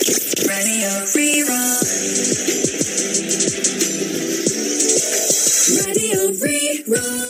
Radio Rí-Rá. Radio Rí-Rá.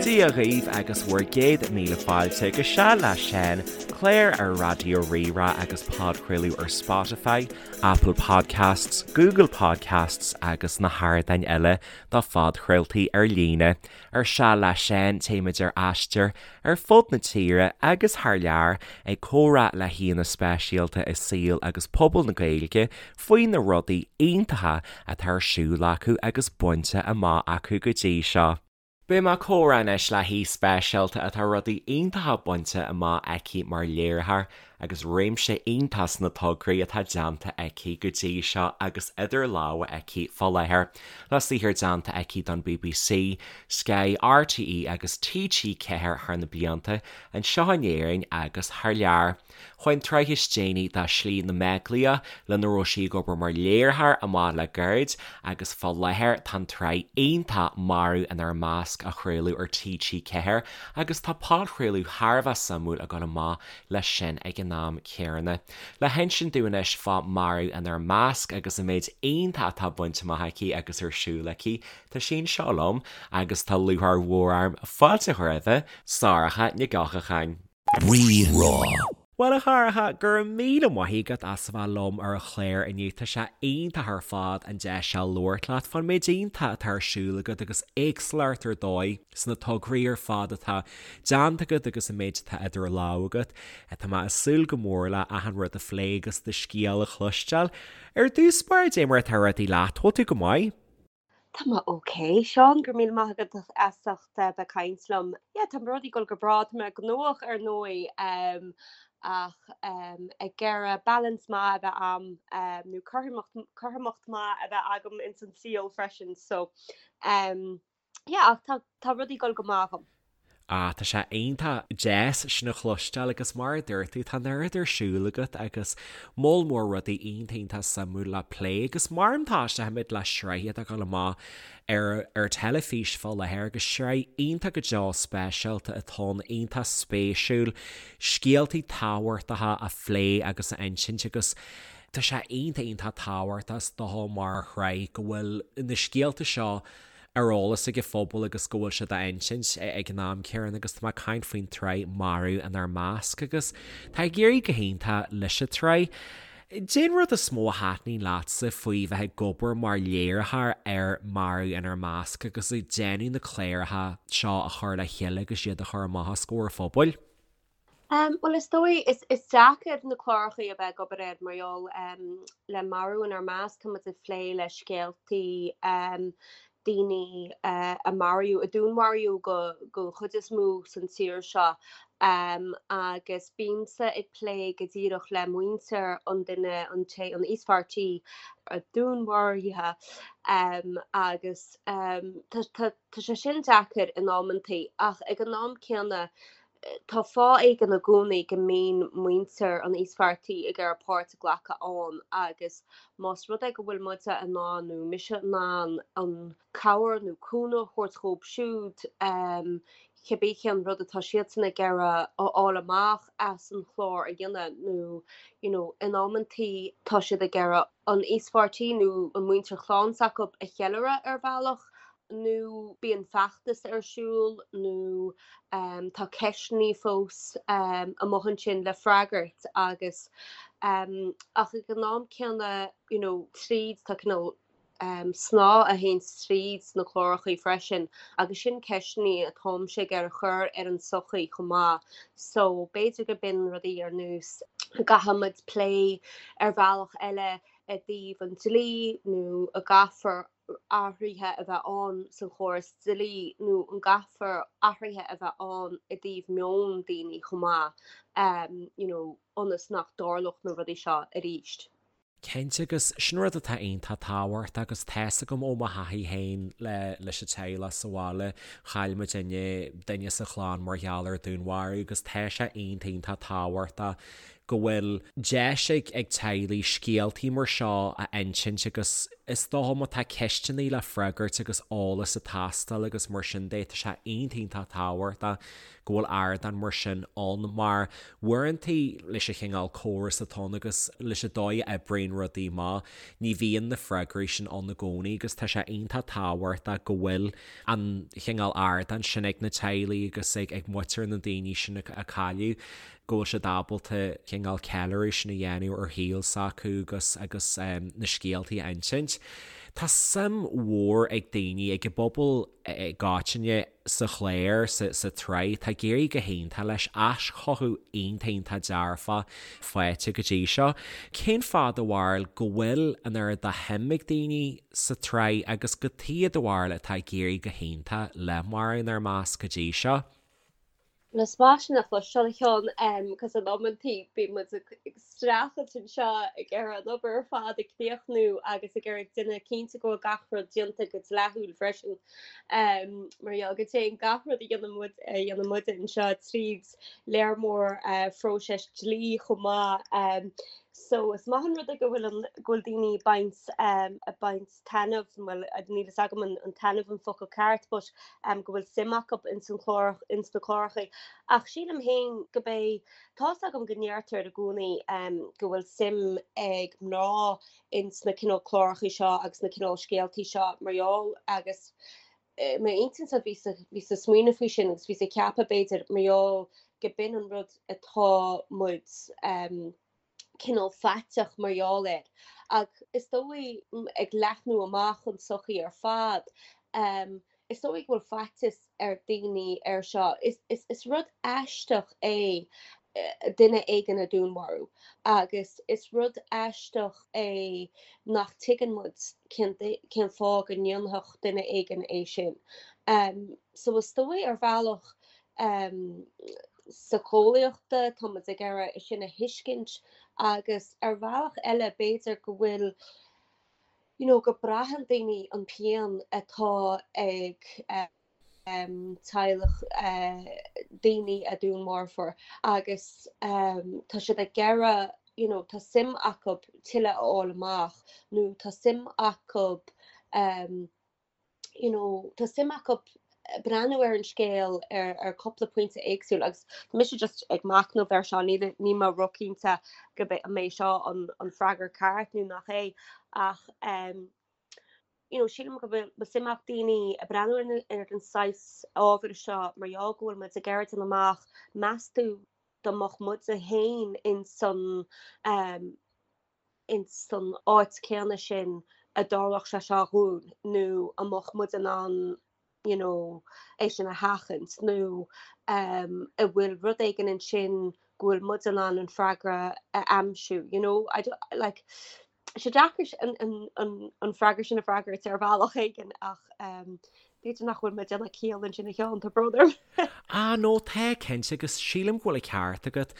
Dia dhaoibh agus bhur gcéad míle fáilte go Seal le Seán, clár ar Raidió Rí-Rá agus podchraoladh ar Spotify, Apple Podcasts, Google Podcasts agus na hardáin eile do phodchraoltaí ar líne. Ar Seal le Seán téimid ar aistear ar fud na tíre agus thar lear ag comhrá le haíonna speisialta i saol agus pobal na Gaeilge faoi na rudaí iontacha atá ar siúl acu agus bainte amach acu go dtí seo. Beidh mé ag comhrá anois le haoi speisialta atá rudaí iontacha bainte amach aici mar léiritheoir agus réimse iontach sna tograí atá déanta aici go dtí seo agus idir lámha aici fá láthair. Le saothar déanta aici don bbc, Sky, RTÉ agus TG4 thar na blianta, anseo in Éirinn agus thar lear. Chuaigh an tsraith is déanaí de Slí na mBeaglaíoch, lena raibh sí ag obair mar léiritheoir, amach le gairid agus fá láthair tá an tsraith iontach Marú Inár Measc á chraoladh ar TG4 agus tá podchraoladh thar a bheith suimiúil ag dul amach leis sin ag an am céanna. Le hinsint dúinn anois fá Marú Inár Measc agus an méid iontach atá bainte amach aici agus ar siúl aici, tá sí anseo liom agus tá lúcháir mhór orm fáilte a chur roimhe, Sorcha Nic Eochagáin. Rí-Rá. Bhuel a Shorcha, go raibh míle maith agat as a bheith liom ar an chlár inniu. Tá sé iontach ar fad an deis seo labhairt leat fán méid iontach atá ar siúl agat agus éagsúlacht ar dóigh sna tograí ar fad atá déanta agat agus an méid atá idir lámha agat. Tá mé ag súil go mór le achan rud a phlé agus do scéal a chloisteáil. Ar dtús báire, dé mar atá rudaí leat, bhfuil tú go maith? Tá mé ok, Seán, go raibh míle maith agat as ucht bheith ag caint liom. Yeah, tá rudaí ag dul go breá, tá mé gnóthach ar ndóigh ach ag iarraidh balance maith a bheith a'm nó cothromacht, cothromacht maith a bheith agam ins an saol freisin so yeah ach tá, tá rudaí ag dul go maith agam. Ah, tá sé iontach deas sin a chloisteáil agus mar a dúirt tú, tá an oiread ar siúl agat agus moll mór rudaí iontach iontach suimiúil le plé agus mar an tosóimid le sraith atá ag dul amach ar ar teilifís fá láthair agus sraith iontach go deo speisialta atá ann, iontach spéisiúil, scéaltaí tábhachtacha a phlé agus a insint agus tá sé iontach iontach tábhachtach is dócha mar shraith go bhfuil na scéalta seo ar eolas ag an phobal agus go bhfuil siad á insint ag an am céanna agus tá mé ag caint faoin tsraith Marú Inár Measc agus tá ag éirí go hiontach leis an tsraith. Cén rud is mó a thaitníonn leatsa faoi bheith ag obair mar léiritheoir ar Marú Inár Measc agus ag déanamh na cláracha seo a chur le chéile agus iad a chur amach os comhair an phobail? Bhuel is dóigh, is is deacair na clárachaí a bheith ag obair air mar gheall le Marú Inár Measc tá muid ag plé le scéaltaí daoine a maraíodh, a dúnmharaíodh go don chuid is mó san tír seo agus bímse ag plé go díreach le muintir an duine, an té, an íospartaigh a dúnmharaithe agus tá tá tá sé sin deacair in amantaí ach ag an am céanna Tá fáth éigin i gcónaí go mbíonn muintir an íospartaigh ag iarraidh páirt a ghlacadh ann agus más rud é go bhfuil muide in ann nó mise in ann an cabhair nó cúnamh a thabhairt dhóibh siúd, cibé cén rud atá siadsan ag iarraidh a fháil amach as an chlár a dhéanamh nó you know in amantaí tá siad ag iarraidh an íospartaigh nó an muintir chlann s'acu a cheiliúradh ar bhealach nó bíonn feachtas ar siúl nó tá ceisteanna fós amuigh ansin le freagairt agus ach ag an am céanna you know tríd tá cineál snáth a théanns tríd sna clárachaí freisin agus sin ceisteanna atáimse ag iarraidh chur ar an sochaí chomh maith so b'fhéidir go b'in rudaí ar nós go gcaithfimid plé ar bhealach eile i dtaobh an dlí nó a gcaithfear athruithe a bheith ann sa chóras dlí nó an gcaithfear athruithe a bheith ann i dtaobh meon daoine chomh maith you know ionas nach dtarlódh na rudaí seo arís. Cinnte, agus sin rud atá iontach tábhachtach agus tá's agam ó mo thaithí féin le leis an teaghlach sa bhaile, chaill muidinne duine sa chlann mar gheall ar dúnmharú agus tá sé iontach iontach tábhachtach. Go bhfuil deis ag ag teaghlaigh scéaltaí mar seo a insint agus is dócha má tá ceisteanna le freagairt agus eolas ag teastáil agus mar sin de, tá sé iontach iontach tábhachtach go bhfuil ardán mar sin ann mar uaireanta leis an chineál córas atá ann agus leis an dóigh a oibríonn rudaí amach, ní bhíonn na freagraí sin ann i gcónaí agus tá sé iontach tábhachtach go bhfuil an chineál ardán sin ag na teaghlaigh agus ag ag muintir na daoine sin a cailleadh. go bhfuil siad ábalta cineál ceiliúradh sin a dhéanamh ar shaol s'acu agus agus na scéaltaí a insint. Tá suim mhór ag daoine, ag an bpobal i gcoitinne sa chlár, sa sa tsraith. Tá ag éirí go hiontach leis, aischothú iontach iontach dearfach faighte go dtí seo. Cén fáth do bharúil go bhfuil an oiread de shuim ag daoine sa tsraith agus cad chuige do bharúil atá ag éirí go hiontach le Marbh Inár Measc go dtí seo? Bhuel is maith sin a chloisteáil a Sheáin cos in amantaí bíonn muid ag streachailt anseo ag iarraidh an obair ar fad a chríochnú agus ag iarraidh déanamh cinnte go bhfuil gach rud déanta go dleathúil freisin. Mar gheall go dtéann gach rud a dhéanann muid a dhéanann muide anseo tríd léar mór phróiseas dlí chomh maith. So is maith an rud é go bhfuil an go bhfuil daoine ag baint ag baint taitneamh, bhuel níl fhios agam an taitneamh an focal ceart but go bhfuil suim acu ins an chlár, ins na cláracha. Ach sílim féin go bé, tá's agam go ndeirtear i gcónaí go bhfuil suim ag mná ins na cineál cláracha seo agus na cineál scéaltaí seo mar gheall agus i m'intinnse bhíos bhíos ag smaoineamh faoi sin agus bhíos ag ceapadh b'fhéidir mar gheall go b'in an rud atá muid cineál faiteach mar gheall air. Ach is dóigh, ag leathnú amach an tsochaí ar fad, is dóigh go bhfuil faitíos ar daoine air seo. Is rud aisteach é duine éigin a dúnmharú agus is rud aisteach é nach tuigeann muid cén cén fáth go ndéanfadh duine éigin é sin. So is dóigh ar bhealach síceolaíochta, tá muid ag iarraidh é sin a thuiscint agus ar bhealach eile b'fhéidir go bhfuil you know go braitheann daoine an pian atá ag teaghlach daoine a dúnmharfóir agus tá siad ag iarraidh you know tá suim acu tuilleadh a fháil amach nó tá suim acu you know, tá suim acu breathnú ar an scéal ar ar cúpla pointe éagsúil agus tá mise just ag machnamh air seo, níl níl mé róchinnte go mbeidh an mbeidh seo an an freagra ceart nó nach é ach um, you know, sílim go bhfuil suim ag daoine ag breathnú ar na ar an saghas ábhair seo mar gheall go bhfuil muid ag iarraidh déanamh amach meas tú dá mbeadh muide féin in san um, ins san áit céanna sin a dtarlódh sé seo dhúinn nó an mbeadh muid in ann you know é sin a sheachaint nó um an bhfuil rud éigin ansin go bhfuil muid in ann an freagra a aimsiú you know I don't like tá sé deacair an an an an freagra sin a freagairt ar bhealach éigin ach um b'fhéidir nach bhfuil mé ag déanamh ciall ansin a Sheáin, tá brón orm. Ah no, tá cinnte agus sílim go bhfuil an ceart agat.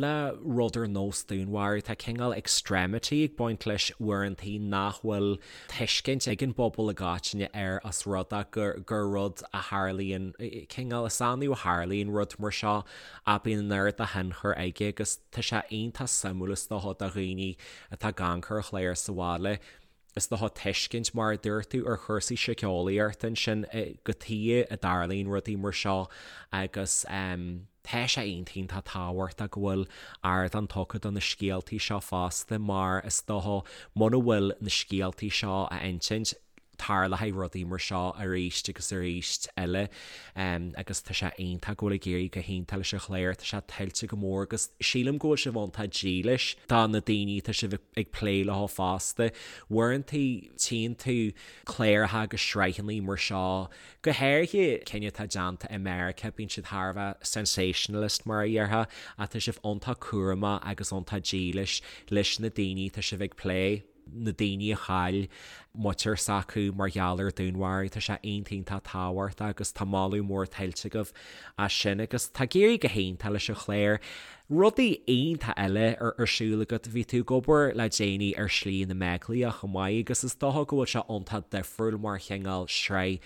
Le rud ar nós dúnmharú tá cineál extremity ag baint leis uaireantaí nach bhfuil tuiscint ag an bpobal i gcoitinne air os rud é gur gur rud a tharlaíonn, cineál is annamh a tharlaíonn rud mar seo ach bíonn an oiread de thionchar aige agus tá sé iontach suimiúil is dócha do dhaoine atá ag amharc ar an chlár sa bhaile. Is dócha tuiscint, mar a dúirt tú, ar chúrsaí síceolaíochta ansin, cad chuige a dtarlaíonn rudaí mar seo agus tá sé iontach iontach tábhachtach go bhfuil ardán tugtha do na scéaltaí seo fosta mar is dócha muna bhfuil na scéaltaí seo á insint tarlóidh rudaí mar seo arís agus arís eile agus tá sé iontach go bhfuil ag éirí go hiontach leis an chlár, tá sé tuillte go mór agus sílim go bhfuil sibh iontach dílis do na daoine atá sibh ag plé leo fosta. Uaireanta tchíonn tú cláracha agus sraitheanna mar seo, go háirithe cinn atá déanta i Meiriceá, bíonn siad thar a bheith sensationalist mar a dhéarfá, ach tá sibh iontach cúramach agus iontach dílis leis na daoine atá sibh ag plé. na daoine a chaill. muintir s'acu mar gheall ar dúnmharú. Tá sé iontach iontach tábhachtach agus tá moladh mór tuillte agaibh as sin agus tá ag éirí go hiontach leis an chlár. Rudaí iontach eile ar ar siúl agat, bhí tú ag obair le déanaí ar Shlí na mBeaglaíoch chomh maith agus is dócha go bhfuil sé iontach difriúil mar chineál sraith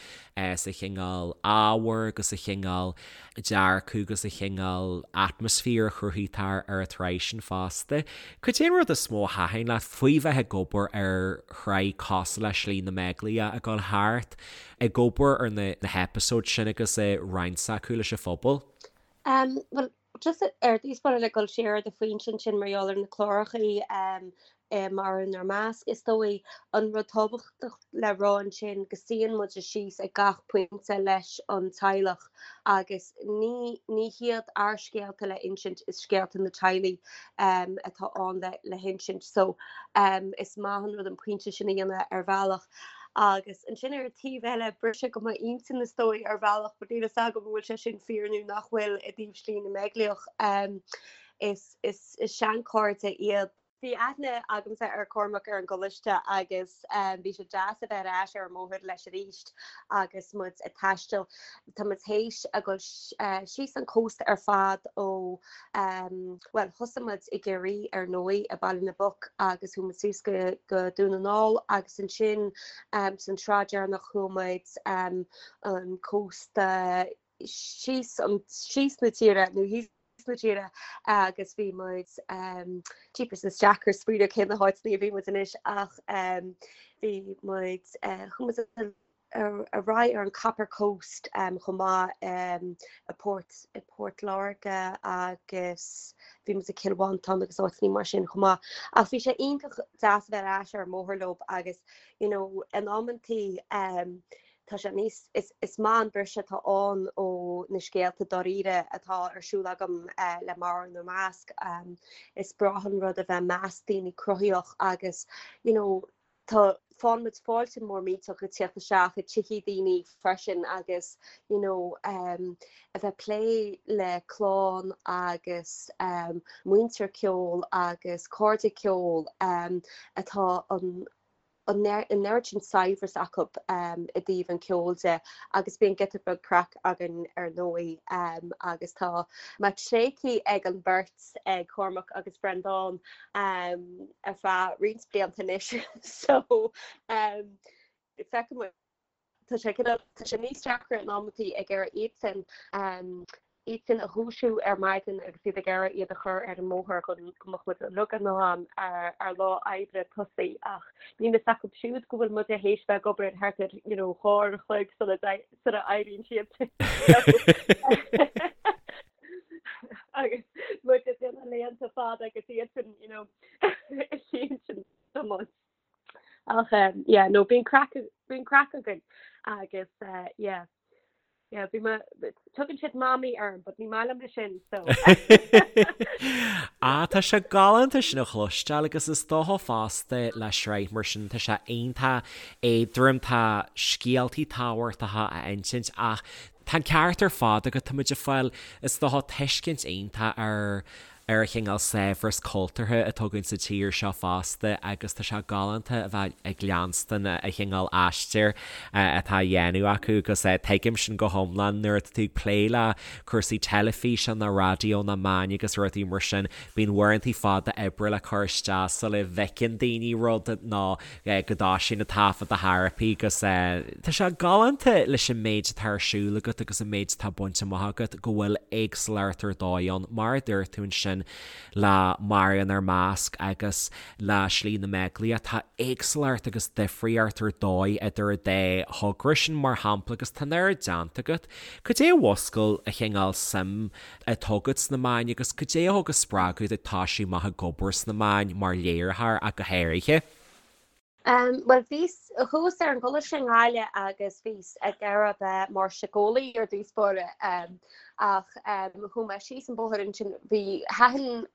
sa chineál ábhair agus sa chineál dearcadh agus sa chineál atmaisféar a chruthaítear ar an tsraith sin fosta. Cad é an rud is mó a thaitin leat faoi bheith ag obair ar shraith cosúil le Slí na mBeaglaíoch, ag dul thart ag obair ar na heipeasóid sin agus ag roinnt s'acu leis an phobal? Bhuel, Just ar dtús báire le dul siar ar do phointe ansin mar gheall ar na clárachaí Marú Inár Measc, is dóigh an rud tábhachtach le rá ansin go suíonn muid síos ag gach pointe leis an teaghlach agus ní ní hiad ár scéalta le insint, is scéalta na teaghlaigh atá ann le le hinsint. So is maith an rud an pointe sin a dhéanamh ar bhealach. Agus ansin ar an taobh eile, briseadh go m'intinn is dóigh ar bhealach, but níl fhios agam an bhfuil sé sin fíor nó nach bhfuil i dtaobh Slí na mBeaglaíoch. Is is is seanchairde iad. Bhí aithne agamsa ar Cormac ar an gcoláiste agus bhí sé deas a bheith ar ais ar an mbóthar leis arís agus muid ag taisteal. Tá muid théis a dhul síos an cósta ar fad ó Bhuel, thosaigh muid i gCiarraí ar ndóigh, i Baile na bPoc agus chuaigh muid suas go go Dún na nGall agus ansin san tsraith deireanach chuaigh muid an cósta síos an síos na tíre nó thíos na tíre agus bhí muid jeepers is deacair smaoineamh cé na háiteanna a bhí muid anois ach bhí muid chuaigh muid ar aghaidh ar an Copper Coast chomh maith i Port i Port Láirge agus bhí muid i Cill Mhantáin agus áiteanna mar sin chomh maith. Ach bhí sé iontach deas a bheith ar ais ar an mbóthar leo agus you know in amantaí tá sé níos is is maith an briseadh atá ann ó na scéalta dáiríre atá ar siúl agam le Marú Inár Measc. Is breá an rud a bheith i measc daoine cruthaitheach agus you know Tá faigheann muid fáilte mór millteach ag tíocht isteach i tithe daoine freisin agus you know a bheith ag plé le clann agus muintir ceoil agus cairde ceoil atá an an oiread sin saibhreas acu i dtaobh an ceoil de agus bíonn giota beag craic againn ar ndóigh agus tá mé tréigthe ag an bheirt ag Cormac agus Breandán ar feadh roinnt blianta anois so feicfidh muid. Tá sé tá sé níos deacra in amantaí ag iarraidh iadsan iadsan a dhúisiú ar maidin agus iad ag iarraidh iad a chur ar an mbóthar chun go mbeadh muid uilig in am ar lá oibre tosaí ach níl fhios acu siúd go bhfuil muid théis bheith ag obair thart ar you know 2 uair a chloig sula sula éiríonn siad. Agus muid ag déanamh laethanta fada agus iadsan, you know, ag tiomáint. Ach um, yeah, no, bíonn craic bíonn craic againn agus uh, yeah. Yeah, bhí mé tugann siad mamaí orm, but ní maith liom é sin, so. Ah, tá sé galánta sin a chloisteáil agus is dócha fosta le sraith mar sin tá sé iontach éadrom, tá scéaltaí tábhachtacha a insint ach Tá an ceart ar fad agat, tá muid ag fáil, is dócha, tuiscint iontach ar ar an chineál saibhreas cultúrtha atá againn sa tír seo fosta agus tá sé galánta a bheith ag leanstan an chineál aistir atá á dhéanamh acu agus tuigim sin go hiomlán nuair atá tú ag plé le cúrsaí teilifíse nó raidió nó meáin agus rudaí mar sin bíonn uaireanta fada oibre le cur isteach sula bhfeiceann daoine rud nó go dtoisíonn an taifead a thairpeadh agus tá sé galánta leis an méid atá ar siúl agat agus an méid atá bainte amach agat go bhfuil éagsúlacht ar dóigh ann, mar a dúirt tú ansin le Marú Inár Measc agus le Slí na mBeaglaíoch, tá éagsúlacht agus difríocht ar dóigh idir an dá thogra sin mar shampla agus tá an oiread déanta agat. Cad é a mhúscail an chineál suim atá agat sna meáin agus cad é a thug an spreagadh duit toisiú amach ag obair sna meáin mar léiritheoir ach go háirithe? Bhuel, bhíos, chuas ar an gcoláiste i nGaillimh agus bhíos ag iarraidh bheith mar síceolaí ar dtús báire ach chuaigh mé síos an bóthar ansin, bhí, thaitin,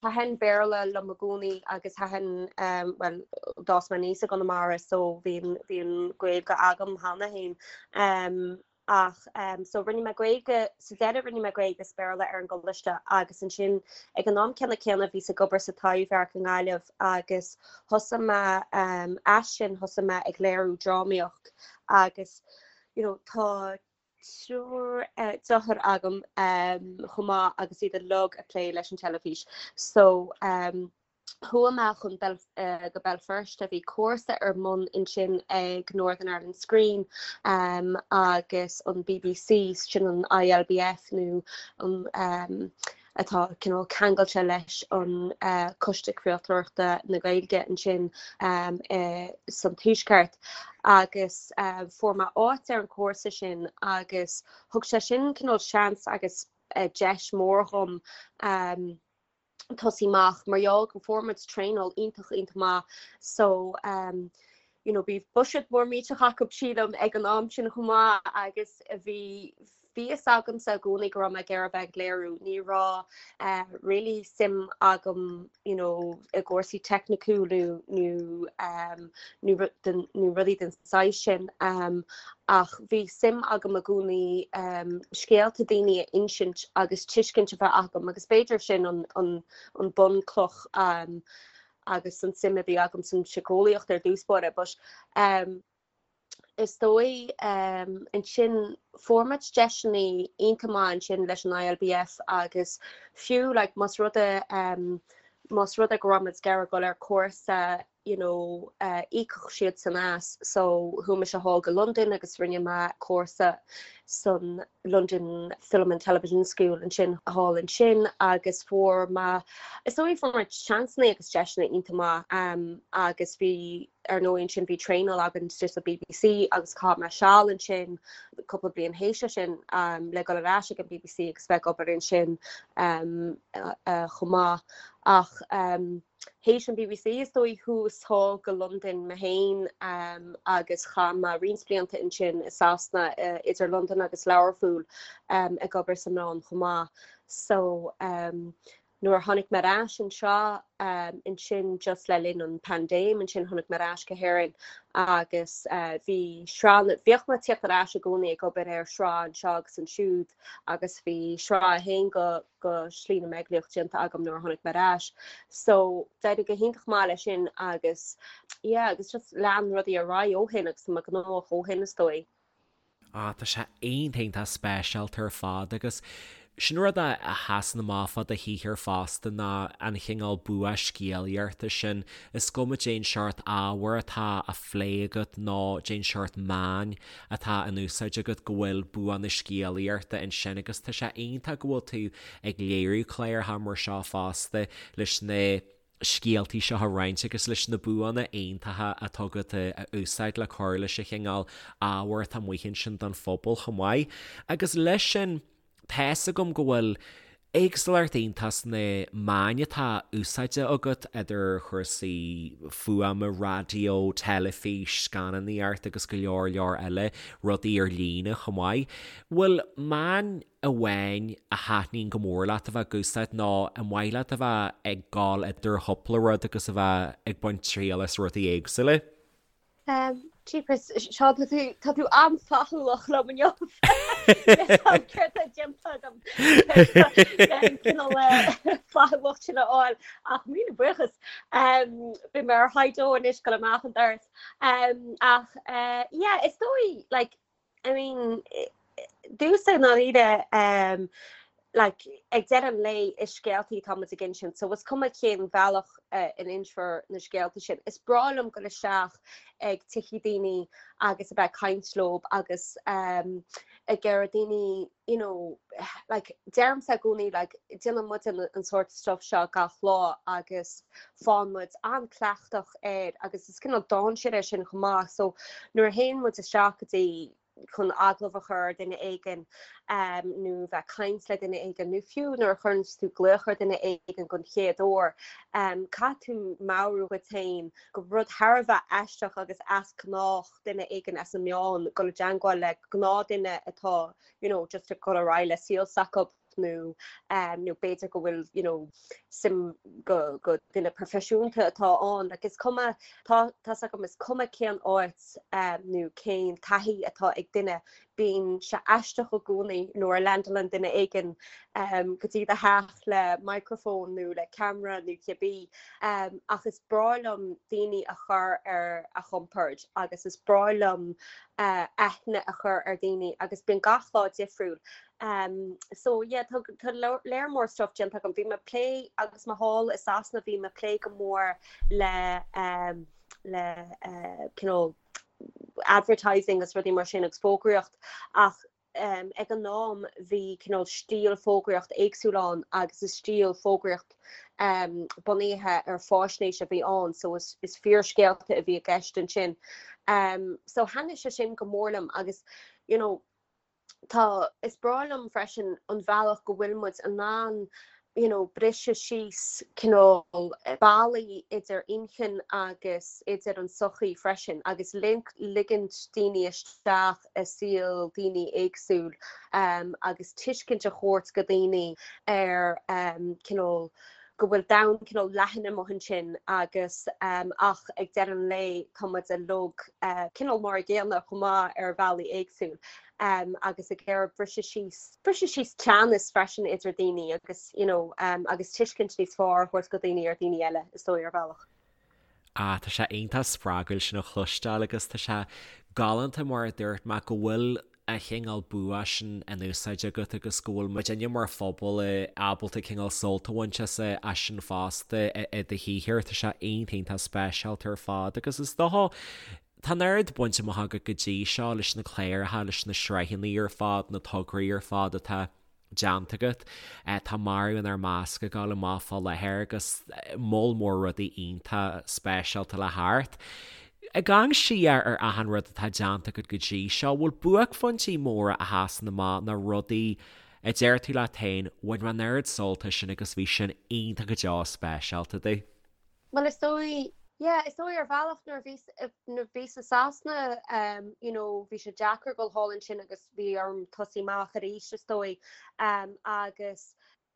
thaitin Béarla liom i gcónaí agus thaitin, bhuel, d'fhás mé aníos i gConamara so bhí an, bhí an Ghaeilge agam cheana féin. Ach so rinne mé Gaeilge, sa deireadh rinne mé Gaeilge is Béarla ar an gcoláiste agus ansin ag an am céanna céanna bhíos ag obair sa Taibhdhearc i nGaillimh agus thosaigh mé as sin thosaigh mé ag léiriú drámaíocht agus you know tá triúr deartháir agam chomh maith agus iad uilig ag plé leis an teilifís so Chuaigh mé chun go Béal Feirste, bhí cúrsa ar bun ansin ag Northern Ireland Screen agus an bbc, sin an ILBF nó an atá cineál ceangailte leis an Coiste Craoltóireachta na Gaeilge ansin san Tuaisceart agus fuair mé áit ar an chúrsa sin agus thug sé sin cineál seans agus deis mhór dhom tosaí amach mar gheall go fuair muid traenáil iontach iontach maith so um you know bhí buiséad mór millteach acu sílim ag an am sin chomh maith agus bhí bhí fhios agamsa i gcónaí go raibh mé ag iarraidh bheith ag léiriú ní raibh eh, really suim agam you know i gcúrsaí teicniúla nó um, nó nó rudaí den saghas sin um, ach bhí suim agam i gcónaí scéalta daoine a insint agus tuiscint a bheith agam agus b'fhéidir sin an an bunchloch agus an suim a bhí agam san síceolaíocht ar dtús báire but is dóigh ansin fuair muid deiseanna iontach maith ansin leis an ILBF agus fiú like más rud é más rud é go raibh muid ag iarraidh dul ar cúrsa you know íocfadh siadsan as so chuaigh mise thall go Londain agus rinne mé cúrsa san London Film and Television School ansin thall ansin agus fuair mé is dóigh fuair mé seansanna agus deiseanna iontach maith um, agus bhí ar ndóigh ansin bhí traenáil againn istigh sa BBC agus chaith mé seal ansin cúpla bliain théis sin um, le dul ar ais ag an BBC agus bheith ag obair ansin um, uh, uh, chomh maith ach um, Théis an BBC is dóigh chuas thall go Londain mé féin agus chaith mé roinnt blianta ansin i Sasana idir Londain agus Learpholl ag obair sna meáin chomh maith. So nuair a tháinig mé ar ais anseo ansin just le linn an paindéim ansin tháinig mé ar ais go hÉirinn agus bhí sraith, bhíodh mé ag tíocht ar ais i gcónaí ag obair ar shraith anseo agus ansiúd agus bhí sraith a haon go go Slí na mBeaglaíoch déanta agam nuair a tháinig mé ar ais. So d'éirigh go hiontach maith leis sin agus yeah agus just lean rudaí ar aghaidh ó shin agus tá mé gnóthach ó shin is dóigh. Ah tá sé iontach iontach speisialta ar fad agus sin rud a sheasann amach fá do shaothar fosta ná an chineál bua scéalaíochta sin. Is cuma cén seort ábhair atá á phlé agat nó cén seort meáin atá in úsáid agat go bhfuil bua na scéalaíochta ansin agus tá sé iontach go bhfuil tú ag léiriú cláracha mar seo fosta leis na scéaltaí seo a roinnt agus leis na buanna iontacha atá agat a úsáid le cur leis an chineál ábhair atá amuigh ansin don phobal chomh maith. Agus leis sin, Tá's agam go bhfuil éagsúlacht iontach sna meáin atá úsáidte agat, idir chúrsaí fuaime, raidió, teilifís, scannánaíocht agus go leor leor eile, rudaí ar líne chomh maith. Bhfuil meán amháin a thaitníonn go mór leat a bheith ag úsáid nó an maith leat a bheith ag gabháil idir chúpla rud agus a bheith ag baint triail as rudaí éagsúla? Jeepers, Seán, tá tú, tá tú an-fhlaithiúlach liom inniu. Céard tá déanta agam an cineál flaithiúlacht sin a fháil ach míle buíochas. Beidh mé ar high dó anois dul amach an doras. Ach yeah, is dóigh, like, I mean, domhsa i ndáiríre, like, ag deireadh an lae is scéaltaí atá muid ag insint, so is cuma cén bhealach a n-insfear na scéalta sin. Is breá liom dul isteach ag tithe daoine agus a bheith ag caint leob agus ag iarraidh daoine, you know, like, deirimse i gcónaí, like, déanann muid an sórt stuff seo gach lá agus faigheann muid an-cleachtach air agus is cineál dainséar é sin chomh maith so nuair a théann muid isteach go dtí chun agallamh a chur ar duine éigin nó bheith ag caint le duine éigin nó fiú nuair a chuireann tú glaoch ar duine éigin don chéad uair caithfidh tú meabhrú dhuit féin gur rud thar a bheith aisteach agus as gnách duine éigin as na meáin dul i dteangmháil le gnáthdhuine atá you know just ag dul ar aghaidh le saol s'acu. nó nó b'fhéidir go bhfuil you know suim go go duine proifisiúnta atá ann like is cuma tá tá's agam is cuma cén áit nó cén taithí atá ag duine. Bíonn sé aisteach i gcónaí nuair a leaindeálann duine éigin go dtí do theach le microphone nó le ceamara nó cibé ach is breá liom daoine a chur ar a gcompord agus is breá liom aithne a chur ar dhaoine agus bíonn gach lá difriúil. So yeah tá tá léar mór stuff déanta agam. Bhí mé ag plé agus mé thall i Sasana bhí mé ag plé go mór le le cineál advertising agus rudaí mar sin agus fógraíocht ach ag an am bhí cineál stíl fógraíocht éagsúil ann agus is stíl fógraíocht bunaithe ar fáisnéis a bhí ann so is is fíorscéalta a bhí i gceist ansin. So thaitnigh sé sin go mór liom agus you know Tá, is breá liom freisin an bhealach go bhfuil muid in ann you know briseadh síos cineál ballaí idir inchinn agus idir an sochaí freisin agus ligint daoine isteach i saol daoine éagsúil agus tuiscint a thabhairt go daoine ar cineál go bhfuil domhan cineál leathan amuigh ansin agus ach ag deireadh an lae tá muid uilig cineál mar a gcéanna chomh maith ar bhealaí éagsúil agus ag iarraidh briseadh síos, briseadh síos teannas freisin idir daoine agus you know agus tuiscint níos fearr a thabhairt go daoine ar daoine eile is dóigh ar bhealach. Ah, tá sé iontach spreagúil sin a chloisteáil agus tá sé galánta mar a dúirt mé go bhfuil an chineál bua sin in úsáid agat agus go bhfuil muidinne mar phobal ábalta cineál sult a bhaint as as sin fosta i do shaothar. Tá sé iontach iontach speisialta ar fad agus is dócha tá an oiread bainte amach agat go dtí seo leis na cláracha, leis na sraitheanna ar fad, na tograí ar fad atá déanta agat. Tá Marbh Inár Measc ag gabháil amach fá láthair agus moll mór rudaí iontach speisialta le theacht. Ag amharc siar ar achan rud atá déanta agat go dtí seo, bhfuil buaicphointí móra a sheasann amach nó rudaí a deir tú leat féin, bhain mé an oiread sult as sin agus bhí sin iontach go deo speisialta domh? Bhuel is dóigh, yeah, is dóigh ar bhealach nuair a bhíos, nuair a bhíos i Sasana um you know bhí sé deacair dul thall ansin agus bhí orm tosaí amach arís is dóigh um agus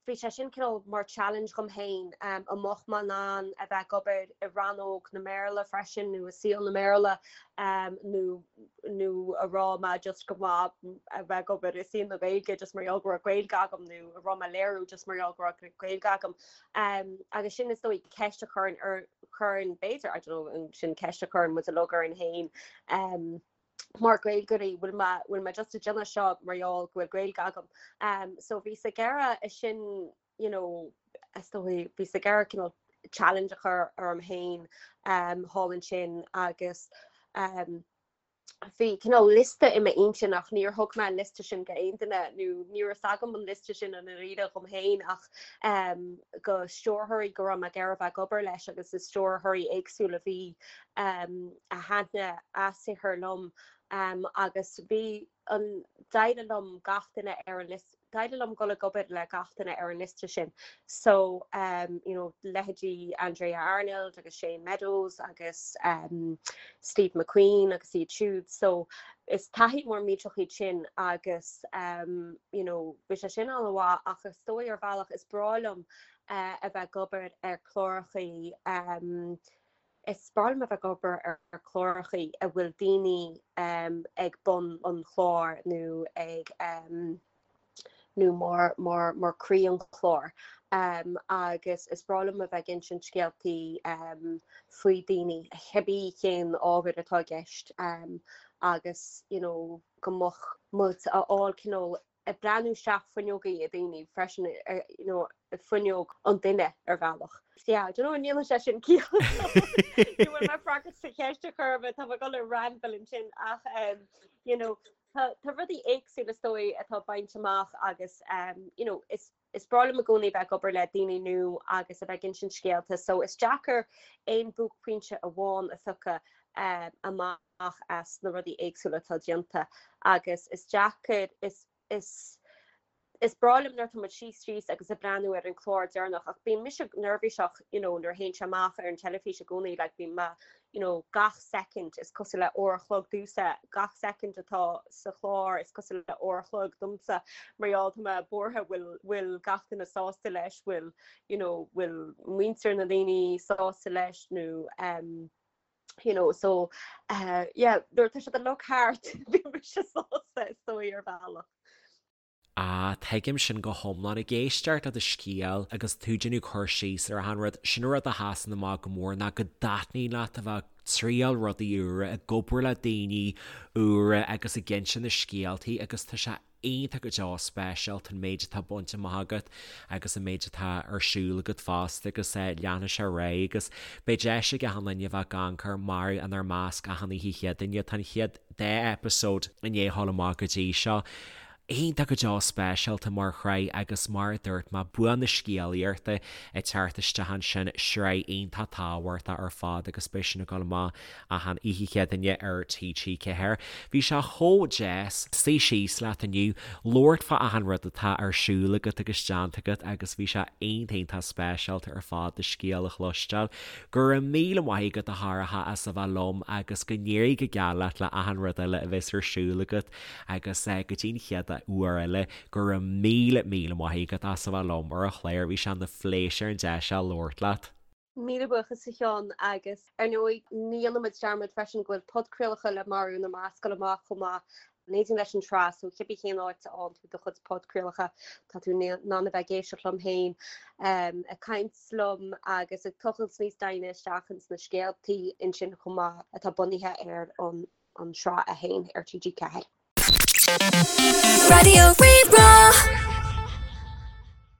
bhí sé sin cineál mar challenge dhom féin um an mbeadh mé in ann a bheith ag obair i rannóg na mBéarla freisin nó i saol na mBéarla um nó nó an raibh mé just go maith a bheith ag obair i saol na Gaeilge just mar gheall go raibh Gaeilge agam nó an raibh mé ag léiriú just mar gheall go raibh Gaeilge agam. Um, agus sin is dóigh ceist a chuireann ar chuireann b'fhéidir I don't know sin ceist a chuireann muid uilig orainn féin um, mar Gaeilgeoirí bhfuil mé bhfuil mé just ag déanamh seo mar gheall go bhfuil Gaeilge agam. Um, so bhíos ag iarraidh é sin you know, is dóigh bhíos ag iarraidh cineál challenge a chur orm féin um, thall ansin agus um, bhí cineál liosta i m'intinn ach níor thug mé an liosta sin go aon duine nó ní raibh fhios agam an liosta sin i ndáiríre dhom féin ach um, go stiúrthóirí go raibh mé ag iarraidh a bheith ag obair leis agus is stiúrthóirí éagsúla a bhí um, a thaitnigh a saothar liom um, agus bhí an d'éirigh liom gach duine ar an liosta d'éirigh liom dul ag obair le gach duine ar an liosta sin. So um, you know, leithéidí Andrea Arnold agus Shane Meadows agus um, Steve McQueen agus iad siúd. So is taithí mór millteach iad sin agus um, you know, bhí sé sin an-mhaith ach is dóigh ar bhealach is breá liom uh, a bheith ag obair ar chlárachaí um, Is breá liom a bheith ag obair ar chlárachaí a bhfuil daoine ag bun an chláir nó ag nó mar mar mar croí an chláir agus is breá liom a bheith ag insint scéaltaí faoi daoine cibé cén ábhar atá i gceist agus you know go mbeadh muid a fháil cineál ag breathnú isteach fuinneogaí ag daoine freisin, you know, fuinneog an duine ar bhealach. Yeah, I don't know an ndéanann sé sin ciall. Ní bhfuil mé ag freagairt do cheist ar chor ar bith, tá mé ag dul ar ramble ansin ach um, you know, tá, tá rudaí éagsúla is dóigh atá bainte amach agus um, you know, is is breá liom i gcónaí bheith ag obair le daoine nua agus a bheith ag insint scéalta, so is deacair aon buaicphointe amháin a phiocadh um, amach. amach as na rudaí éagsúla atá déanta agus is deacair, is, is, is breá liom nuair atá muid síos síos agus ag breathnú ar an chlár deireanach ach bíonn mise neirbhíseach you know nuair a théann sé amach ar an teilifís i gcónaí like bíonn mé you know gach soicind is cosúil le uair a chlog domhsa, gach soicind atá sa chlár is cosúil le uair a chlog domsa mar gheall tá mé buartha bhfuil bhfuil gach duine sásta leis, bhfuil you know bhfuil muintir na ndaoine sásta leis nó um. You know, so uh, yeah, nuair atá siad uilig thart bíonn mise sásta is dóigh ar bhealach. Ah, tuigim sin go hiomlán. Ag éisteacht le do scéal agus tú ag déanamh cur síos ar achan rud, sin an rud a sheasann amach go mór ná go dtaitníonn leat a bheith ag triail rudaí úra, ag obair le daoine úra agus ag inse na scéaltaí agus tá sé iontach go deo speisialta an méid atá bainte amach agat agus an méid atá ar siúl agat fosta agus leanfaidh sé ar aghaidh agus beidh deis ag achan duine a bheith ag amharc ar Marbh inár Measc achan oíche Chéadaoine. Tá an chéad dá eipeasóid i ndiaidh a ghabháil amach go dtí seo. Iontach go deo speisialta mar shraith agus mar a dúirt mé, bua na scéalaíochta ag teacht isteach ansin, sraith iontach tábhachtach ar fad agus beidh sin ag dul amach achan oíche Chéadaoine ar TG4. Bhí sé chomh deas suí síos leat inniu, labhairt fá achan rud atá ar siúl agat agus déanta agat agus bhí sé iontach iontach speisialta ar fad do scéal a chloisteáil. Go raibh míle maith agat a Shorcha as a bheith liom agus go n-éirí go geal leat le achan rud eile a bheas ar siúl agat agus go dtí an chéad uair eile go raibh míle míle maith agat as a bheith liom ar an chlár, bhí sé ina phléisiúr an deis seo labhairt leat. Míle buíochas a Sheáin agus ar ndóigh ní dhéanfaidh muid dearmad freisin go bhfuil podchraolacha le Marbh Inár Measc ag dul amach chomh maith in éindí leis an tsraith so cibé cén áit a fhaigheann tú do chuid podchraolacha tá tú in ann a bheith ag éisteacht liom féin ag caint liom agus ag tochailt níos doimhne isteach ins na scéaltaí ansin chomh maith atá bunaithe ar an an tsraith é féin ar TG4. Raidió Rí-Rá.